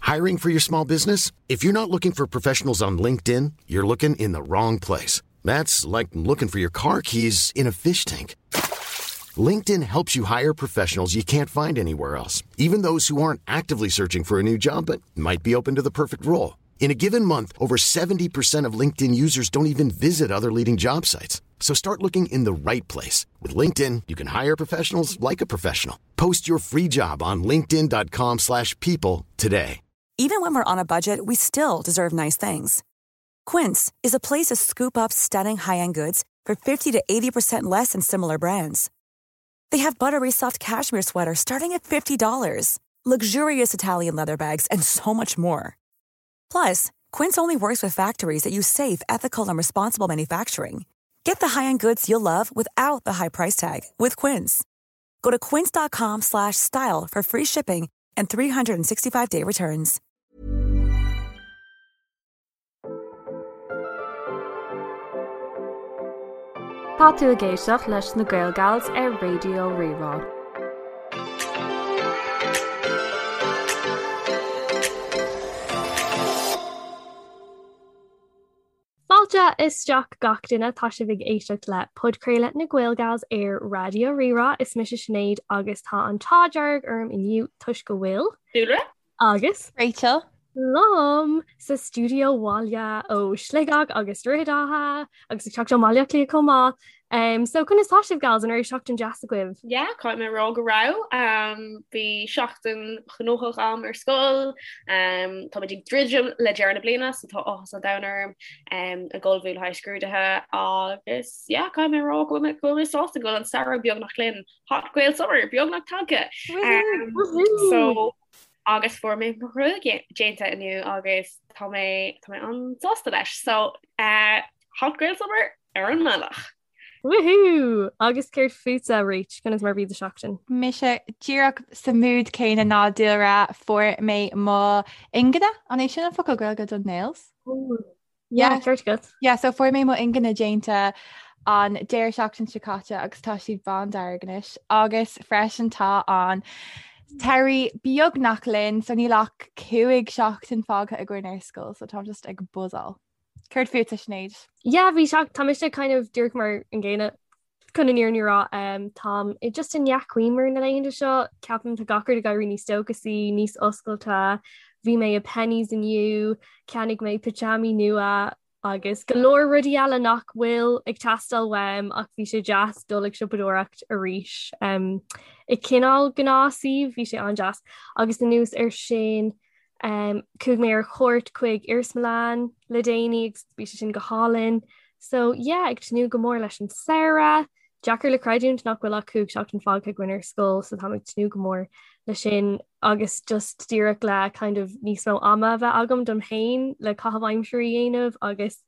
Hiring for your small business? If you're not looking for professionals on LinkedIn, you're looking in the wrong place. That's like looking for your car keys in a fish tank. LinkedIn helps you hire professionals you can't find anywhere else, even those who aren't actively searching for a new job but might be open to the perfect role. In a given month, over 70% of LinkedIn users don't even visit other leading job sites. So start looking in the right place. With LinkedIn, you can hire professionals like a professional. Post your free job on linkedin.com slash people today. Even when we're on a budget, we still deserve nice things. Quince is a place to scoop up stunning high-end goods for 50 to 80% less than similar brands. They have buttery soft cashmere sweaters starting at $50, luxurious Italian leather bags, and so much more. Plus, Quince only works with factories that use safe, ethical, and responsible manufacturing. Get the high-end goods you'll love without the high price tag with Quince. Go to quince.com slash style for free shipping and 365-day returns. Tá tú ag éisteacht leis na Gael Gals ar Raidió Rí-Rá. Fáilte isteach gach duine, tá sibh ag éisteacht le podchraoladh na Gael Gals ar Raidió Rí-Rá. Is mise Sinéad agus tá an t-ádh dearg orm inniu toisc go bhfuil. Dúlra. Agus. Rachel. Liom sa stiúideo abhaile ó Shligeach agus Droichead Átha agus ag teacht ó Bhaile Átha Cliath chomh maith. Um, so conas tá sibh gals an raibh seachtain deas agaibh? Yeah, caithfidh mé a rá go raibh. Um, bhí seachtain ghnóthach agam ar scoil. Um, táimid ag druidim le deireadh na bliana, so tá áthas an domhain orm um, ag ullmhú le haghaidh scrúduithe agus yeah, caithfidh mé a rá go bhfuil mé- go bhfuil mé sásta go bhfuil an samhradh beagnach linn. Hot Gael Summer beagnach tagtha. Um, so agus fuair mé mo ghruaig déanta inniu agus tá mé tá mé an-sásta leis. So uh, Hot Gael Summer ar an mbealach. Woohoo! Agus céard fútsa Rach, conas mar bhí do sheachtain? Mise díreach sa mood céanna ná Dúlra fuair mé mo ingne, an é sin an focal Gaeilge don nails? Yeah, ceart agat. Yeah, so fuair mé mo ingne déanta an deireadh seachtain seo caite agus tá siad bándearg anois agus freisin tá an t-earrach beagnach linn so níl ach 5 seachtain fágtha againn ar scoil so táim just ag buzzáil. Céard fútsa Sinéad? Yeah, bhí seach tá mise kind of díreach mar an gcéanna chun an fhírinne a rá um, táim i just i ndea-chuimhne na laethanta seo ceapaim tá gach rud ag éirí níos dóchasaí, níos oscailte. Bhí mé i Penneys inniu, cheannaigh mé pitseámaí nua agus go leor rudaí eile nach bhfuil ag teastáil uaim ach bhí sé deas dul ag siopadóireacht arís. Um, i cineál gnáthshuíomh bhí sé an-deas agus anuas ar sin Um, chuaigh mé ar chuairt chuig iarsmalann le déanaí agus bhí sé sin go hálainn. So yeah, ag tnúth go mór leis an samhradh. Deacair le creidiúint nach bhfuil ach 5 seachtain fágtha againn ar scoil, so táim ag tnúth go mór le sin agus just díreach le kind of níos mó ama a bheith agam dom féin le caitheamh aimsire a dhéanamh agus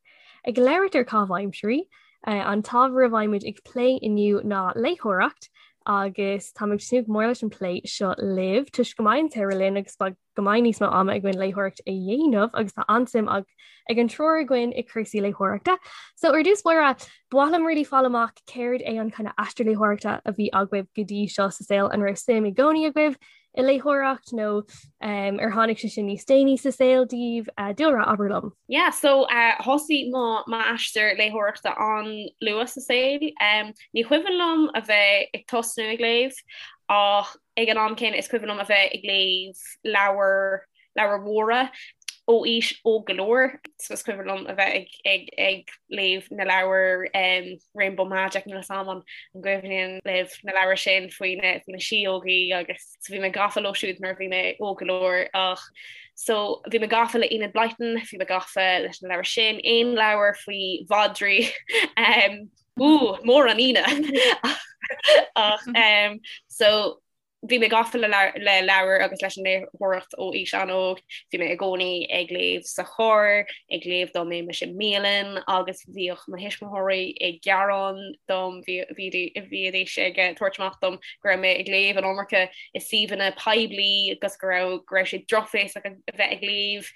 ag labhairt ar caitheamh aimsire, uh, an t-ábhar a bheidh muid ag plé inniu ná léitheoireacht agus táim ag tnúth go mór leis an plé seo libh toisc go mbeidh an samhradh linn agus go mbeidh níos mó ama againn léitheoireacht a dhéanamh agus tá an-suim ag ag an triúr againn i cúrsaí léitheoireachta. So ar dtús báire, ba mhaith liom really fáil amach céard é an kind of aistear léitheoireachta a bhí agaibh go dtí seo sa saol an raibh suim i gcónaí agaibh i léitheoireacht nó um, ar tháinig sé sin níos déanaí sa saol daoibh uh, Dúlra abair liom. Yeah, so uh, thosaigh mo m'aistear léitheoireachta an-luath sa saol. Um, ní cuimhin liom a bheith ag tosnú ag léamh ach ag an am céanna is cuimhin liom a bheith ag léamh leabhar leabhair mhóra ó aois óg go leor. So is cuimhin liom a bheith ag ag ag léamh na leabhar um, Rainbow Magic níl a fhios agam an an gcuimhníonn libh na leabhair sin faoi na faoi na síógaí agus so bhí mé gafa leo siúd nuair a bhí mé óg go leor ach so bhí mé gafa le Enid Blyton, bhí mé gafa leis na leabhair sin, aon leabhar faoi mhadraí um, ú, mór an ionadh ach um, so bhí mé gafa le leabhair agus leis an léitheoireacht ó aois an-óg. Bhí mé i gcónaí ag léamh sa charr, ag léamh dá mbeimis i mbialann agus bhíodh mo thuismitheoirí ag gearán dom, bhídís ag tabhairt amach dom go raibh mé ag léamh an iomarca i suíomhanna poiblí agus go raibh go raibh sé drochbhéasach a bheith ag léamh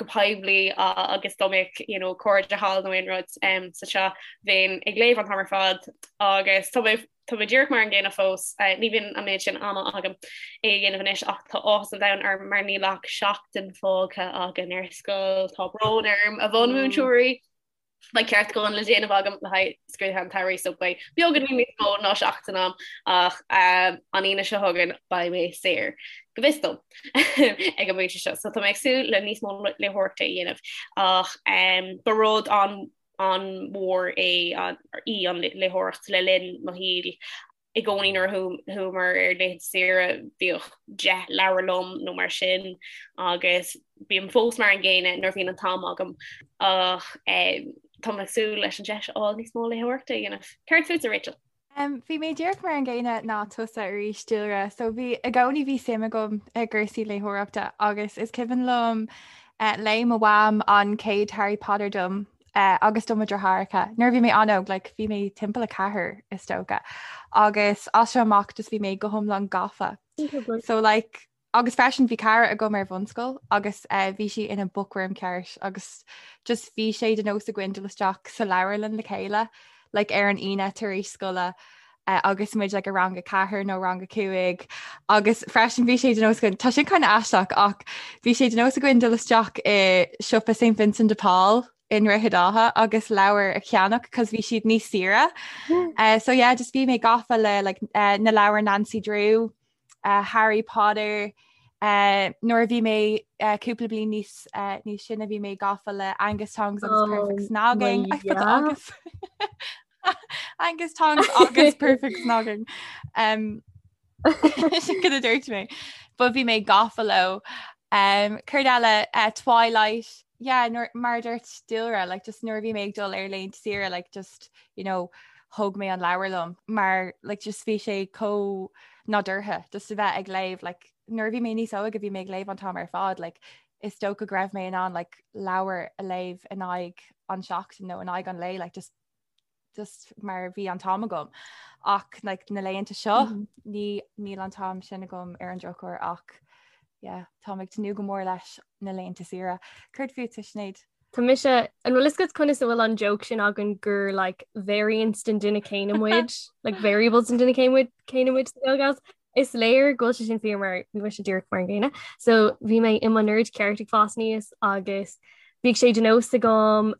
go poiblí agus dá mbeadh you know cairde thall nó aon rud sa teach bheinn ag léamh an t-am ar fad agus tá mé. Tá mé díreach mar an gcéanna fós, ní bhíonn an méid sin ama agam é a dhéanamh anois ach tá áthas an domhain orm mar níl ach seachtain fágtha againn ar scoil, tá brón orm a bhunmhúinteoirí! Beidh ceartúchán le déanamh agam le haghaidh scrúduithe an tsamhraidh so beidh beagáinín níos mó ná seachtain agam ach an Aoine seo chugainn beidh mé saor, go bhfios dom, ag an bpointe seo. So tá mé ag súil le níos mó léitheoireachta a dhéanamh ach ba rud an an-mhór é í an léitheoireacht le linn mo shaoil. I gcónaí nuair a chuamar ar laethanta saoire bhíodh 10 leabhar liom nó mar sin agus bím fós mar an gcéanna nuair a bhíonn an t-am agam ach táim ag súil leis an deis a fháil níos mó léitheoireachta a dhéanamh. Céard fútsa Rachel? Bhí mé díreach mar an gcéanna ná tusa arís, Dúlra. So bhí i gcónaí bhí suim agam i gcúrsaí léitheoireachta agus is cuimhin liom léigh mo mham an chéad Harry Potter dom agus do mo dheartháireacha nuair a bhí mé an-óg, like bhí mé timpeall 4 is dócha agus as seo amach just bhí mé go hiomlán gafa. So like Agus freisin bhí cara agam ar bhunscoil agus bhí sí ina bookworm ceart agus just bhí sé de nós againn dul isteach sa leabharlann le chéile like ar an Aoine tar éis scoile agus muid like i rang a ceathair nó rang a cúig agus freisin bhí sé de nós againn tá sin kind of aisteach ach bhí sé de nós againn dul isteach i siopa St Vincent de Paul i nDroichead Átha agus leabhair a cheannach cos bhí siad níos saoire. Uh, so yeah, just bhí mé gafa le like, uh, na leabhair Nancy Drew uh, Harry Potter, uh, nuair a bhí mé uh, cúpla bliain níos uh, níos sine bhí mé gafa le Angus Tongs agus oh, Perfect Snogging I put Agus Angus Tongs agus Perfect Snogging um, sin cad a dúirt mé but bhí mé gafa leo um, céard eile uh, Twilight yeah, nuair, mar a dúirt Dúlra like, just nuair a bhí mé ag dul ar laethanta saoire like, just you know, thóg mé an leabhar liom mar like, just bhí sé chomh nádúrtha just a bheith ag léamh like, nuair a bhí mé níos óige bhí mé ag léamh an t-am ar fad like, is dócha go raibh mé in ann like, leabhar a léamh in aghaidh an seachtain nó in aghaidh an lae like, just, just mar bhí an t-am agam ach like, na laethanta seo mm -hmm. ní níl an t-am sin agam ar an drochuair ach yeah, táim ag tnúth go mór leis na laethanta saoire. Céard fútsa Sinéad? Tá mise, an bhfuil fhios agat conas a bhfuil an joke sin againn gur like variants den duine céanna muid, like variables den duine céanna muid céanna muid sa Gaelgals. Is léir go bhfuil sé sin fíor mar bhí mise díreach mar an gcéanna. So bhí mé i mo nerd ceart ag fás aníos agus bhíodh sé de nós agam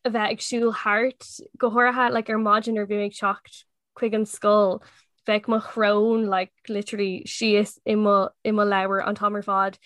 a bheith ag siúl thart, go háirithe like ar maidin nuair a bhí mé ag teacht chuig an scoil, bheadh mo shrón like literally síos i mo i mo leabhar an t-am ar fad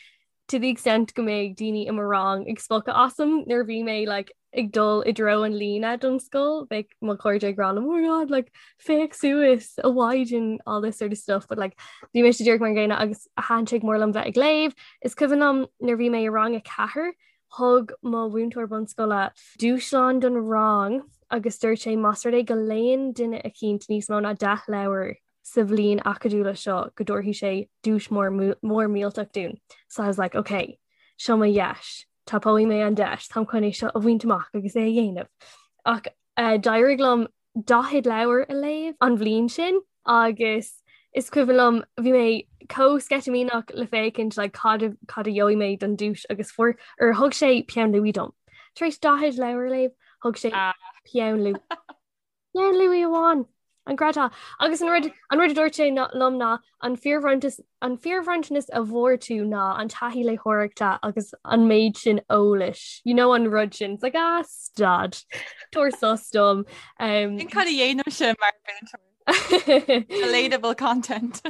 to the extent go mbeadh daoine i mo rang ag spochadh asam nuair a bhí mé like ag dul i dtreo an líne don scoil, bheadh mo chairde ag rá liom oh my god like féach suas a mhaighdean all this sort of stuff but like bhí mise díreach mar an gcéanna agus thaitin sé go mór liom bheith ag léamh. Is cuimhin liom nuair a bhí mé i rang 4 Thug mo mhúinteoir bunscoile dúshlán don rang agus dúirt sé más rud é go léann duine eicínt níos mó ná 10 leabhar sa bhliain acadúla seo go dtabharfaidh sé duais mór mór millteach dúinn. So I was like, ok, seo mo dheis, tapóidh mé an deis, táim chun é seo a bhaint amach agus é a dhéanamh. Ach uh, d'éirigh liom 40 leabhar a léamh an bhliain sin agus is cuimhin liom bhí mé chomh sceitimíneach le féachaint like, cad a, cad a gheobhaidh mé don duais agus fuair or thug sé peann luaidhe dom. Tar éis 40 leabhar a léamh, thug sé ah. peann luaidhe. Peann luaidhe amháin. An gcreidfeá. Agus an rud an rud a dúirt sé liom ná an fíorbhronntanas an fíorbhronntanas a bhfuair tú ná an taithí léitheoireachta agus an méid sin eolais. You know an rud sin. It's like ah stad. Tabhair sos dom. Um, Sin cad a dhéanaimse mar mhúinteoir. Relatable content.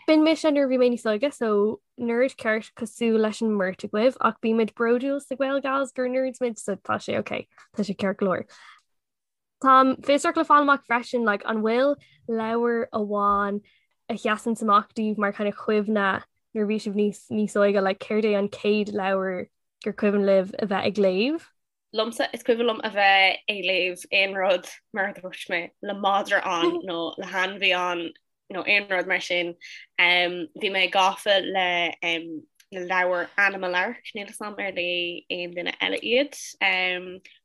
B'in mise nuair a bhí mé níos óige so nerd ceart cosúil leis an mbeirt agaibh ach bímid bródúil sa Gaelgals gur nerds muid so tá sé ok tá sé ceart go leor. Táim fiosrach le fáil amach freisin like, an bhfuil leabhar amháin a sheasann amach daoibh mar kind of chuimhne nuair a bhí sibh níos níos óige like, céard é an chéad leabhar gur cuimhin libh a bheith ag léamh? Liomsa, is cuimhin liom a bheith ag léamh aon rud mar a dúirt mé le madra ann nó le hainmhí ann nó aon rud mar sin. Bhí mé gafa le na leabhair Animal Ark, níl 'fhios a'm ar léigh aon duine eile iad.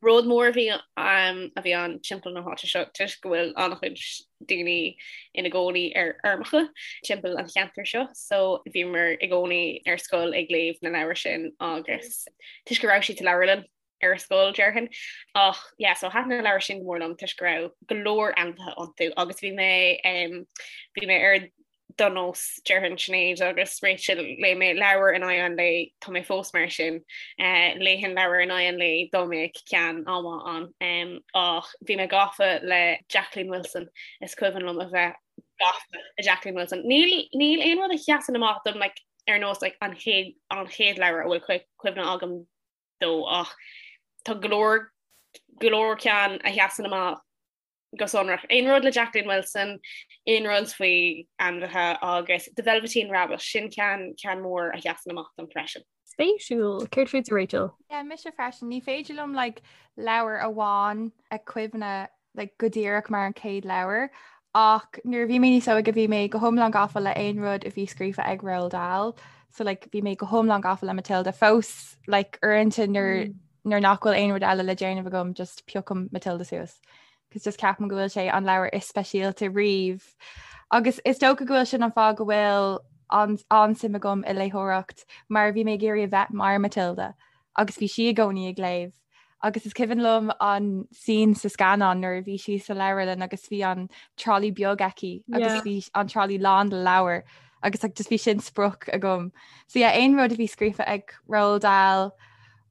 Rud mór a bhí a bhí ann timpeall na háite seo toisc go bhfuil an-chuid daoine ina gcónaí ar fheirmeacha timpeall an cheantair seo, so bhíomar i gcónaí ar scoil ag léamh na leabhar sin agus toisc go raibh siad sa leabharlann. Ar scoil, déarfainn. Ach yeah, so thaitin na leabhair sin go mór liom toisc go raibh go leor ainmhithe iontu agus bhí mé um, bhí mé ar do nós déarfainn Sinéad agus Rachel léigh mé leabhar in aghaidh an lae tá mé fós mar sin uh, léifinn leabhar in aghaidh an lae dá mbeadh ceann an-mhaith ann um, ach bhí mé gafa le Jacqueline Wilson is cuimhin liom a bheith gafa le Jacqueline Wilson. Níl níl aon rud a sheasann amach dom like, ar nós like, an chéad an chéad leabhar a bhfuil cuimhne agam dó ach tá go leor go leor ceann a sheasann amach go sonrach. Aon rud le Jacqueline Wilson, aon rud faoi ainmhithe agus The Velveteen Rabbit, sin ceann ceann mór a sheasann amach dom freisin. Spéisiúil. Céard fútsa Rachel? Yeah, mise freisin. Ní féidir liom like, leabhar amháin a cuimhne like, go díreach mar an chéad leabhar ach nuair a bhí mé níos óige bhí mé go hiomlán gafa le aon rud a bhí scríofa ag Roald Dahl so like, bhí mé go hiomlán gafa le Matilda fós like, uaireanta nuair mm. nuair nach bhfuil aon rud eile le déanamh agam just piocaim Matilda suas. Cos just ceapaim go bhfuil sé an leabhar is speisialta riamh. Agus is dócha go bhfuil sin an fáth go bhfuil an an-suim agam i léitheoireacht mar bhí mé ag iarraidh a bheith mar Matilda agus bhí sí i gcónaí ag léamh. Agus is cuimhin liom an scene sa scannán nuair a bhí sí sa leabharlann agus bhí an trolley beag aici agus bhí an trolley lán le leabhair agus like, just bhí sin sprioc agam. So yeah, aon rud a bhí scríofa ag Roald Dahl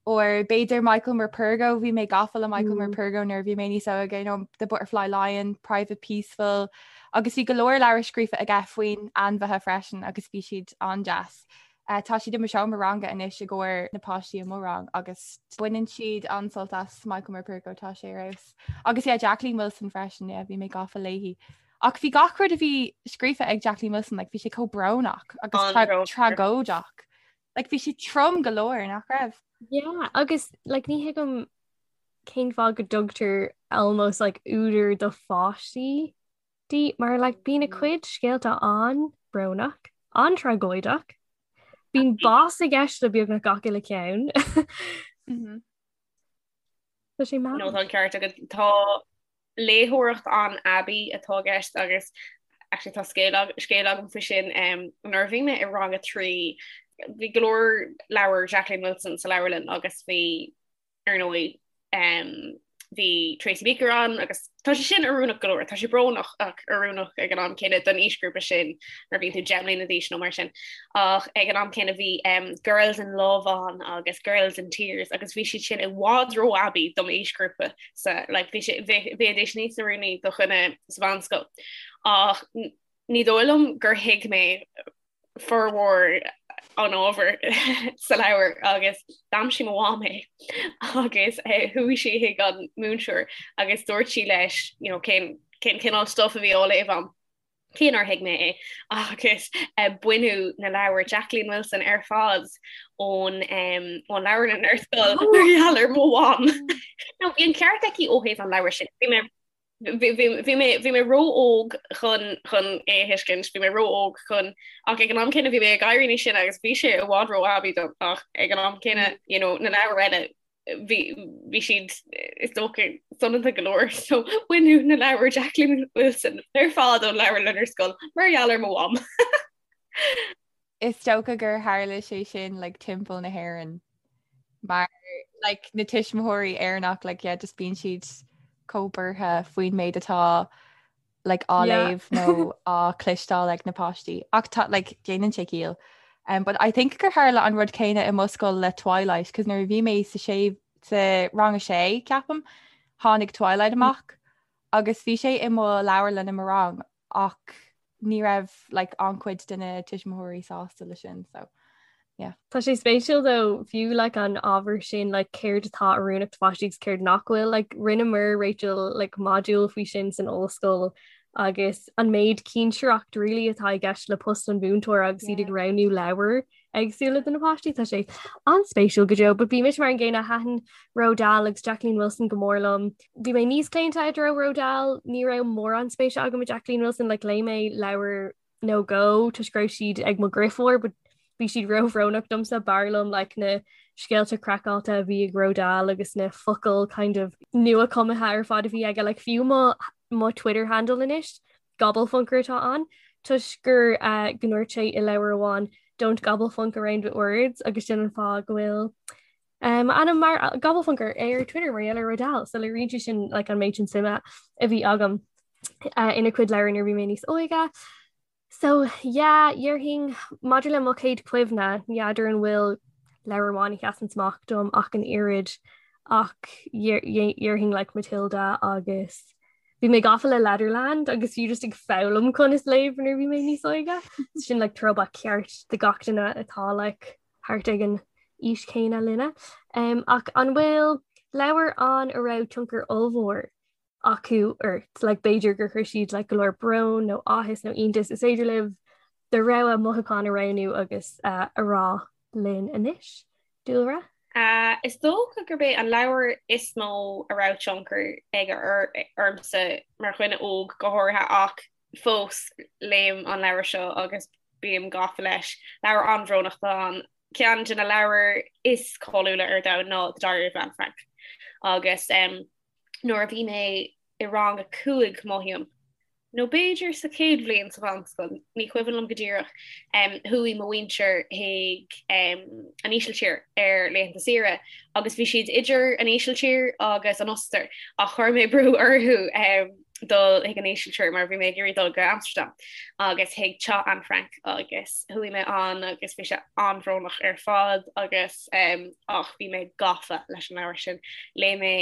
or b'fhéidir Michael Morpurgo, bhí mé gafa le Michael mm. Morpurgo nuair a bhí mé níos óige, you know, The Butterfly Lion, Private Peaceful, agus bhí go leor leabhar scríofa aige faoin ainmhithe freisin agus bhí siad an-deas. Tá siad i mo seomra ranga anois i gcomhair na páistí i mo rang agus baineann siad an-sult as Michael Morpurgo, tá sé ar fheabhas. Agus yeah, Jacqueline Wilson freisin, yeah, bhí mé gafa léi. Ach bhí gach rud a bhí scríofa ag Jacqueline Wilson, like, bhí sé chomh brónach agus tragóideach. Like, bhí sé trom go leor, nach raibh? Yeah, agus like, ní thuigim cén fáth go dtugtar almost like údar do pháistí di mar like bíonn a cuid scéalta an-bhrónach, an-tragóideach. Bíonn bás i gceist le beagnach gach uile ceann. Tá sé mad. No tá an ceart agat tá léitheoireacht an-aibí atá i gceist agus actually tá scéal scéal agam faoi sin um, nuair a bhí mé i rang a 3 bhí go leor leabhar Jacqueline Wilson sa leabharlann agus bhí ar ndóigh bhí Tracy Beaker ann agus tá sé sin oiriúnach go leor, tá sé brónach ach oiriúnach ag an am céanna don aoisghrúpa sin nuair a bhíonn tú 10 mbliana d'aois nó mar sin. Ach ag an am céanna bhí um, Girls in Love ann agus Girls in Tears agus bhí siad sin i bhfad ró-aibí dom aoisghrúpa sa like, bhí sé bheidís níos oiriúnaí do dhuine sa mheánscoil. Ach ní dóigh liom gur thuig mé formhór an ábhair sa leabhar agus d'aimsigh mo mham é agus eh, chuaigh sí chuig an múinteoir agus dúirt sí leis you know, cén cén cineál stuff a bhí á léamh agam. Cé nár thuig mé é agus eh, baineadh na leabhair Jacqueline Wilson ar fad ón um, ón leabharlann ar scoil mar gheall ar mo mham. Now, bhí an ceart aici ó thaobh an leabhair sin. Bhí mé Bhí mé bhí mé ró-óg chun chun é a thuiscint, bhí mé ró-óg chun ach ag an am céanna bhí mé ag éirí níos sine agus bhí sé i bhfad ró-aibí dom ach ag an am céanna you know, na leabhair eile bhí bhí siad is dócha soineanta go leor so baineadh na leabhair Jacqueline Wilson ar fad ón leabharlann ar scoil mar gheall ar mo mham. Is dócha gur tharla sé sin like, timpeall na hÉireann mar like, na tuismitheoirí Éireannach like, yeah, just bíonn siad chomh buartha faoin méid atá like, á yeah. léamh nó á chloisteáil ag na páistí. Ach tá like, déanann sé ciall. Um, but I think gur tharla an rud céanna i mo scoil le Twilight, cos nuair a bhí mé sa sé sa rang a sé ceapaim tháinig Twilight amach agus bhí sé i mo leabharlann i mo rang ach ní raibh like an-chuid de na tuismitheoirí sásta le sin so yeah. Tá sé spéisiúil though fiú like an ábhar sin like céard atá oiriúnach do pháistí agus céard nach bhfuil like rinneamar Rachel like modúl faoi sin san ollscoil agus an méid cinsireacht really atá i gceist le post an mhúinteora agus iad ag roghnú leabhar éagsúla do na páistí tá sé an-spéisiúil go deo, but bhí mise mar an gcéanna thaitin Roald Dahl agus Jacqueline Wilson go mór liom. Bhí mé níos claonta i dtreo Roald Dahl, ní raibh mórán spéise agam i Jacqueline Wilson like léigh mé leabhar nó dhó toisc go raibh siad ag mo dheirfiúr, but bhí siad róbhrónach domsa b'fhearr liom like na scéalta craiceáilte a bhí ag Roald Dahl agus na focail kind of nua-chumtha ar fad a bhí aige like fiú mo mo Twitter handle anois Gobblefunker atá ann toisc gur go ndúirt sé i leabhar amháin don't gobblefunk around with words agus sin an fáth go bhfuil. M'ainm mar Gobblefunker ar Twitter mar gheall ar Roald Dahl, so léiríonn sé sin like, an méid sin suime a bhí agam uh, ina cuid leabhar nuair bhí mé níos óige. So yeah, déarfainn maidir le mo chéad chuimhne, ní fheadar an bhfuil leabhar amháin a sheasann amach dom ach an oiread ach déarfainn like Matilda agus bhí mé gafa le Letterland agus fiú just ag foghlaim conas léamh nuair bhí mé níos óige. Sin like throwback ceart do gach duine atá like thart ag an aois chéanna linne. Um, ach an bhfuil leabhar ann a raibh tionchar ollmhór acu ort? Like, b'fhéidir gur chuir siad like, go leor brón nó áthas nó iontas. Is féidir libh do rogha mothúchán a roghnú agus uh, a rá linn anois. Dúlra? Uh, is dócha gurb é an leabhar is mó a raibh tionchar aige ormsa mar dhuine óg go háirithe ach fós léim an leabhar seo agus bím gafa leis. Leabhar an-bhrónach atá ann. Ceann de na leabhair is cáiliúla ar domhan ná The Diary of Anne Frank. Agus um, nuair a bhí mé i rang a 5 mothaím, nó b'fhéidir sa chéad bhliain sa mheánscoil, ní cuimhin liom go díreach, um, chuaigh mo mhuintir chuig um, an Ísiltír ar laethanta saoire agus bhí siad idir an Ísiltír agus an Ostair ach chuir mé brú orthu um, dul chuig an Ísiltír mar bhí mé ag iarraidh dul go Amsterdam agus chuig teach Anne Frank agus chuaigh mé ann agus bhí sé an-bhrónach ar fad agus um, ach bhí mé gafa leis an leabhar sin. Léigh mé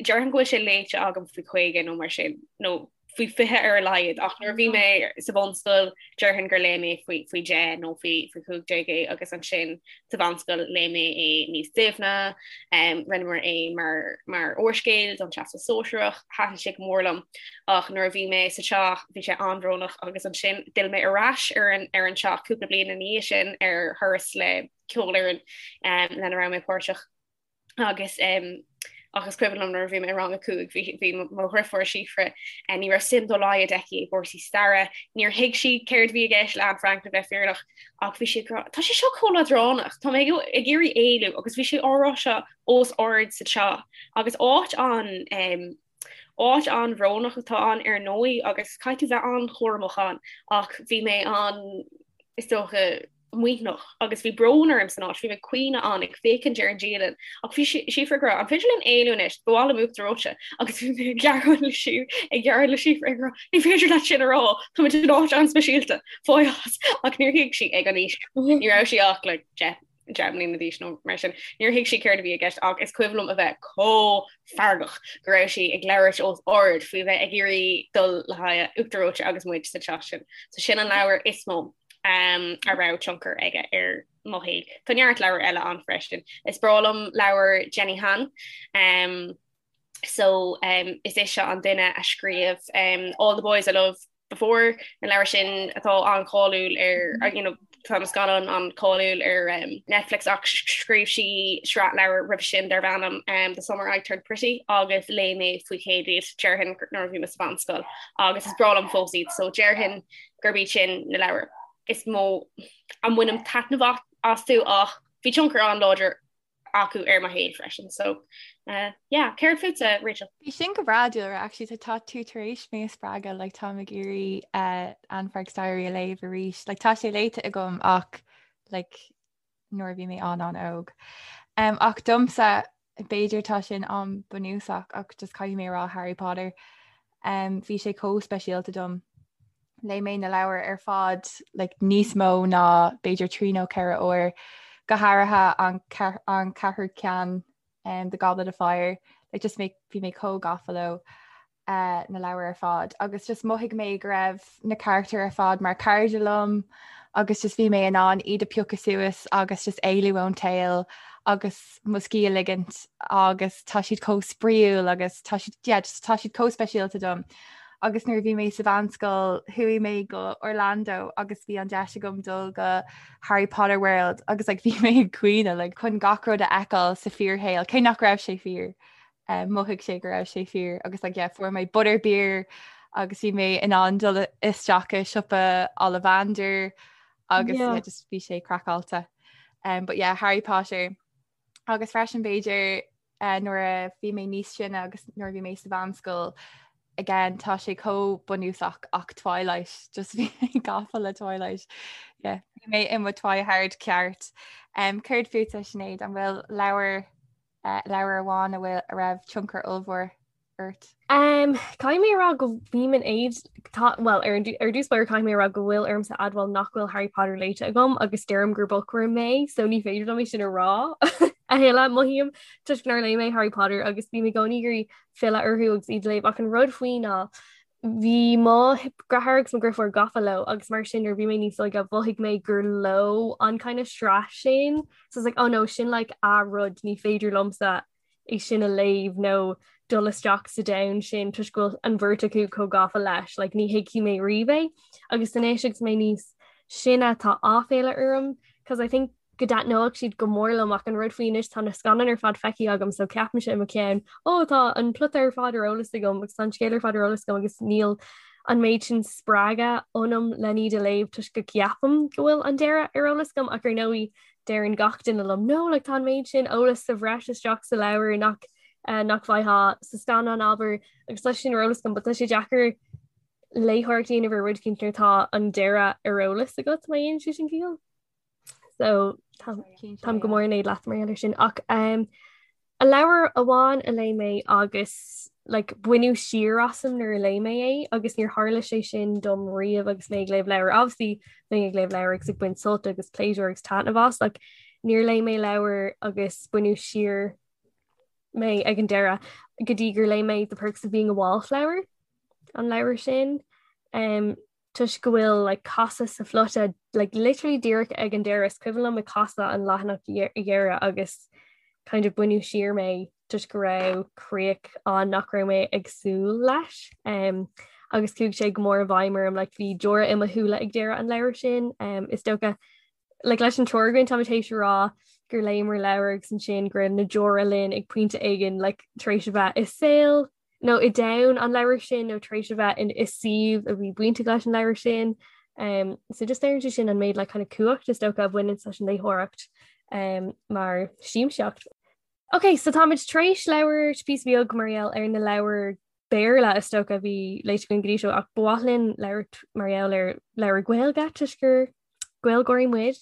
déarfainn go bhfuil sé léite agam faoi 50 nó mar sin nó faoi 20 ar a laghad ach nuair a bhí mé sa bhunscoil déarfainn gur léigh mé faoi faoi 10 nó faoi faoi 15 é agus ansin sa mheánscoil léigh mé é níos doimhne um, rinneamar é mar mar úrscéal don Teastas Sóisearach thaitin sé go mór liom ach nuair a bhí mé sa teach bhí sé an-bhrónach agus ansin d'fhill mé ar ais ar an ar an teach cúpla bliain ina dhiaidh sin ar thuras le ceolfhoireann um, lena raibh mé páirteach agus um, ach is cuimhin liom nuair a bhí mé i rang a 5 bhí bhí mo dheirfiúr Síofra eh, ní raibh suim dá laghad aici i gcúrsaí staire, níor thuig sí céard a bhí i gceist le Anne Frank le bheith fírinneach ach bhí sí ag rá tá sé seo chomh leadránach, tá mé ag iarraidh éalú agus bhí sí á rá seo os ard sa teach agus áit an um, áit an-bhrónach atá ann ar ndóigh agus caithfidh tú bheith an-chúramach ann ach bhí mé an is dócha maoithneach agus bhí brón orm san áit, bhí mé ag caoineadh ann ag féachaint ar an dialann ach bhí Síofra ag rá an féidir linn éalú anois, ba mhaith liom uachtar reoite agus bhí mé ag gearán le sí ag gearán le Síofra ag rá ní féidir leat sin a rá, táimid in áit an-speisialta, fág as ach níor thuig sí ag an aois, ní raibh sí ach like 10 10 mbliana d'aois nó mar sin, níor thuig sí céard a bhí i gceist ach is cuimhin liom a bheith chomh feargach go raibh sí ag labhairt os ard faoi bheith ag iarraidh dul le haghaidh uachtar reoite agus muid sa teach sin. So sin an leabhar is mó um, a raibh tionchar aige ar mo shaol. Tá neart leabhar eile ann freisin. Is breá liom leabhar Jenny Han. Um, so um, is ise an duine a scríobh um, All the Boys I Loved Before na leabhair sin atá an-cháiliúil ar mm-hmm. you know, tá na scannáin an-cháiliúil ar um, Netflix ach scríobh sí sraith leabhar roimhe sin darb ainm um, The Summer I Turned Pretty agus léigh mé faoi chéad iad déarfainn nuair a bhí mé sa mheánscoil agus is breá liom fós iad so déarfainn gurb iad sin na leabhair is mó a mbainim taitneamh astu ach bhí tionchar an-láidir acu ar mo shaol freisin so uh, yeah, céard fútsa Rachel? Bhí sin go breá Dúlra actually tá tú tar éis mé a spreagadh like, táim ag iarraidh uh, Anne Frank's Diary a léamh arís like, tá sé léite agam ach like, nuair a bhí mé an-an-óg. Um, ach domsa b'fhéidir tá sin an-bhunúsach ach just caithfidh mé a rá Harry Potter. Um, bhí sé chomh speisialta dom. Léigh mé na leabhair ar fad like, níos mó ná b'fhéidir trí nó ceithre uair, go háirithe an, an ceathrú ceann um, The Goblet of Fire, like, just mé, bhí mé chomh gafa leo. uh, na leabhair ar fad agus just mhothaigh mé go raibh na carachtair ar fad mar cairde liom agus just bhí mé in ann iad a piocadh suas agus just éalú ón tsaol agus mo scíth a ligint agus tá siad chomh spraíúil agus tá siad yeah, just, tá siad chomh speisialta dom. Agus nuair a bhí mé sa mheánscoil chuaigh mé go Orlando agus bhí an deis agam dul go Harry Potter World agus like, bhí mé ag caoineadh like, chun gach rud a fheiceáil sa fíorshaol cé nach raibh sé fíor. mhothaigh sé go raibh sé fíor agus like, yeah, fuair mé butterbeer agus bhí mé in ann dul isteach i siopa Ollivander agus yeah. Yeah, just bhí sé craiceáilte. Um, but yeah, Harry Potter agus freisin b'fhéidir uh, nuair a bhí mé níos sine agus nuair a bhí mé sa mheánscoil. again tá sé chomh bunúsach ach Twilight just bhí mé gafa le Twilight. Yeah, bhí mé i mo Twihard ceart. Um, céard fútsa Sinéad an bhfuil leabhar uh, leabhar amháin a bhfuil a raibh tionchar ollmhór ort? Um, caithfidh mé a rá go bím in éad tá well ar ar dtús báire caithfidh mé a rá go bhfuil ormsa admháil nach bhfuil Harry Potter léite agam agus deirim gur bookworm mé so ní féidir liom é sin a rá a thuilleadh mothaím toisc nár léigh mé Harry Potter agus bím i gcónaí ag iarraidh filleadh orthu agus iad a léamh ach an rud faoi ná bhí mo dheartháir agus mo dheirfiúr gafa leo agus mar sin nuair bhí mé níos óige mhothaigh mé gur leo an kind of sraith sin so it's like oh no sin like a rud ní féidir liomsa é sin a léamh nó dul isteach sa domhan sin toisc go bhfuil an bheirt acu chomh gafa leis, like ní thuigfidh mé riamh é. Agus anois agus mé níos sine tá áiféala orm cause I think go dtaitneodh siad go mór liom ach an rud faoi anois tá na scannáin ar fad feicthe agam so ceapaimse i mo cheann ó tá an plota ar fad ar eolas agam agus tá an scéal ar fad ar eolas agam agus níl an méid sin spreagadh ionam len iad a léamh toisc go gceapaim go bhfuil an deireadh ar eolas agam ach ar ndóigh deireann gach duine liom no like tá an méid sin eolas sa bhreis isteach sa leabhar nach uh, nach bhfaighfeá sa scannán abair agus tá sin ar eolas agam, but tá sé deacair léitheoireacht a dhéanamh ar rud éicint nuair atá an deireadh ar eolas agat má dhéanann sé sin ciall. So táim go mór in éad leat mar gheall air sin ach um, A leabhar amháin a léigh mé agus like baineadh siar asam nuair a léigh mé é agus níor tharla sé sin dom riamh agus mé ag léamh leabhar. Obviously bheinn ag léamh leabhar agus ag baint sult agus pléisiúr agus taitneamh as ach níor léigh mé leabhar agus baineadh siar mé ag an deireadh go dtí gur léigh mé The Perks of Being a Wallflower an leabhar sin. Um, toisc go bhfuil like casadh sa phlota like literally díreach ag an deireadh is cuimhin liom ag casadh an leathanach dheireadh agus kind of baineadh siar mé toisc go raibh críoch ann nach raibh mé ag súil leis um, agus chuaigh sé go mór i bhfeidhm orm like bhí deora i mo shúile ag deireadh an leabhair sin um, is dócha like leis an triúr againn táimid théis a rá gur léamar leabhar agus ansin go raibh na deora linn ag pointe éigin like tar éis a bheith i saol nó i domhan an leabhair sin nó tar éis a bheith in i suíomh a bhí bainteach leis an leabhar sin. Um, so just léiríonn sé sin an méid like, kind of cumhacht is dócha a bhaineann leis an léitheoireacht um, mar siamsaíocht. Ok, so táimid tar éis labhairt píosa beag mar gheall ar na leabhair Béarla is dócha a bhí léite againn go dtí seo ach ba mhaith linn labhairt mar gheall ar leabhair Gaeilge toisc gur Gaeilgeoirí muid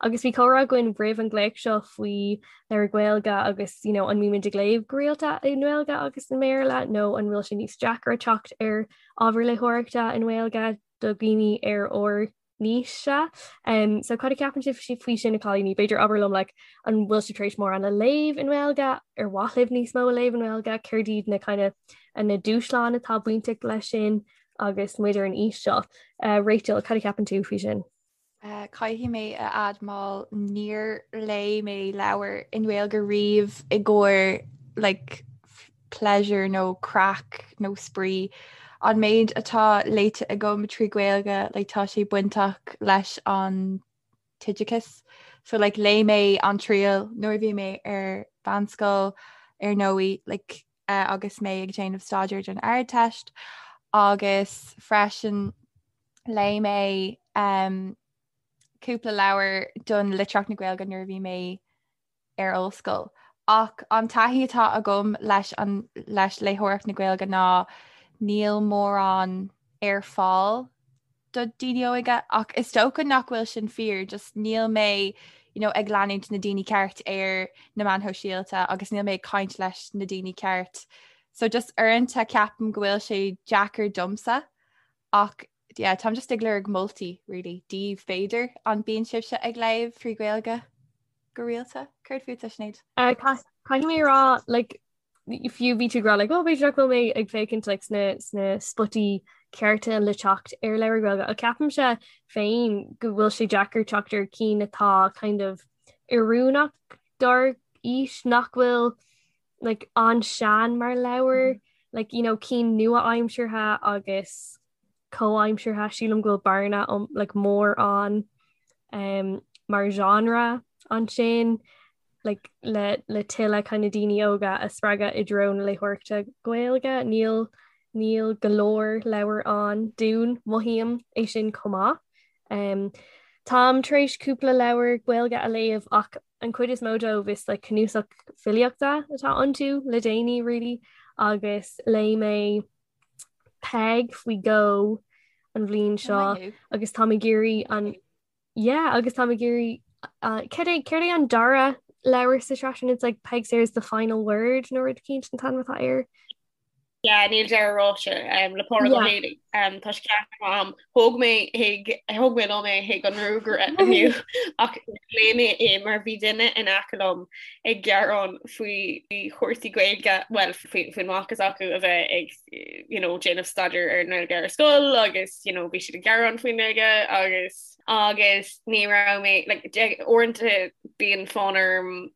agus bhí comhrá againn roimh an nglaoch seo faoi leabhair Ghaeilge agus you know, an mbímid ag léamh go rialta i nGaeilge agus i mBéarla nó an bhfuil sé níos deacra teacht ar ábhar léitheoireachta i nGaeilge do dhaoine ar ár n-aois-se. Um, so cad a ceapann sibh faoi sin a chailíní? B'fhéidir abair liom like, an bhfuil sibh tar éis mórán a léamh i nGaeilge, ar mhaith libh níos mó a léamh i nGaeilge, céard iad na kind of, na dúshláin atá bainteach leis sin? agus muid ar an aois seo. Rachel, cad a cheapann tú faoi sin? Caithfidh mé a admháil níor léigh mé leabhar i nGaeilge riamh i gcomhair like pleasure nó craic nó spraoi. An méid atá léite agam trí Ghaeilge like tá sé bainteach leis an t-oideachas. So like léigh mé An Triail nuair a bhí mé ar mheánscoil ar ndóigh like agus mé ag déanamh staidéir don Ardteist agus freisin léigh mé um, cúpla leabhar don litríocht na Gaeilge nuair a bhí mé ar ollscoil. Ach an taithí atá agam leis an leis léitheoireacht na Gaeilge ná níl mórán ar fáil do daoine óga ach is dócha nach bhfuil sin fíor, just níl mé you know, ag leanúint na daoine ceart ar na meáin shóisialta agus níl mé ag caint leis na daoine ceart. So just uaireanta ceapaim go bhfuil sé deacair domsa ach yeah, táim just ag lorg moltaí really daoibh b'fhéidir an bíonn sibhse ag léamh trí Ghaeilge go rialta? Céard fútsa Sinéad? Uh, Caithfidh mé rá like, fiú bhí tú ag rá like, oh, b'fhéidir nach bhfuil mé ag féachaint like, sna, sna spotaí cearta le teacht ar leabhair Ghaeilge. Ach ceapaimse féin go bhfuil sé deacair teacht ar cinn atá kind of oiriúnach dár aois nach bhfuil like, an-sean mar leabhar, mm -hmm. like, you know, cinn nua-aimseartha agus comhaimseartha. Sílim go bhfuil bearna um, like, mór ann um, mar genre ansin like, le, le tuilleadh kind of daoine óga a spreagadh i dtreo na léitheoireachta Gaeilge. Níl níl go leor leabhar ann dúinn mothaím é sin chomh maith. Um, táim tar éis cúpla leabhar Gaeilge a léamh ach an chuid is mó dóibh is like, cnuasach filíochta atá iontu le déanaí really agus léigh mé. Peig faoi dhó an bhliain seo agus táim ag iarraidh an yeah agus táim ag iarraidh uh, céard é céard é an dara leabhar sa tsraith sin it's like Peig Sayers the final word nó rud eicínt an t-ainm atá air. Yeah, níl deireadh ráite um, le Pádraig Ó Héalaí. Um, tá sé ceannaithe agam. Thóg mé chuig thóg mé liom é chuig an ngruagaire inniu ach léigh mé é mar bhí duine in aice liom ag gearán faoi chúrsaí Gaeilge, well faoin mac s'acu a bheith ag you know, déanamh staidéar ar an nGaeilge ar scoil agus you know, bhí siad ag gearán faoin nGaeilge agus agus ní raibh mé like, uaireanta bíonn fonn orm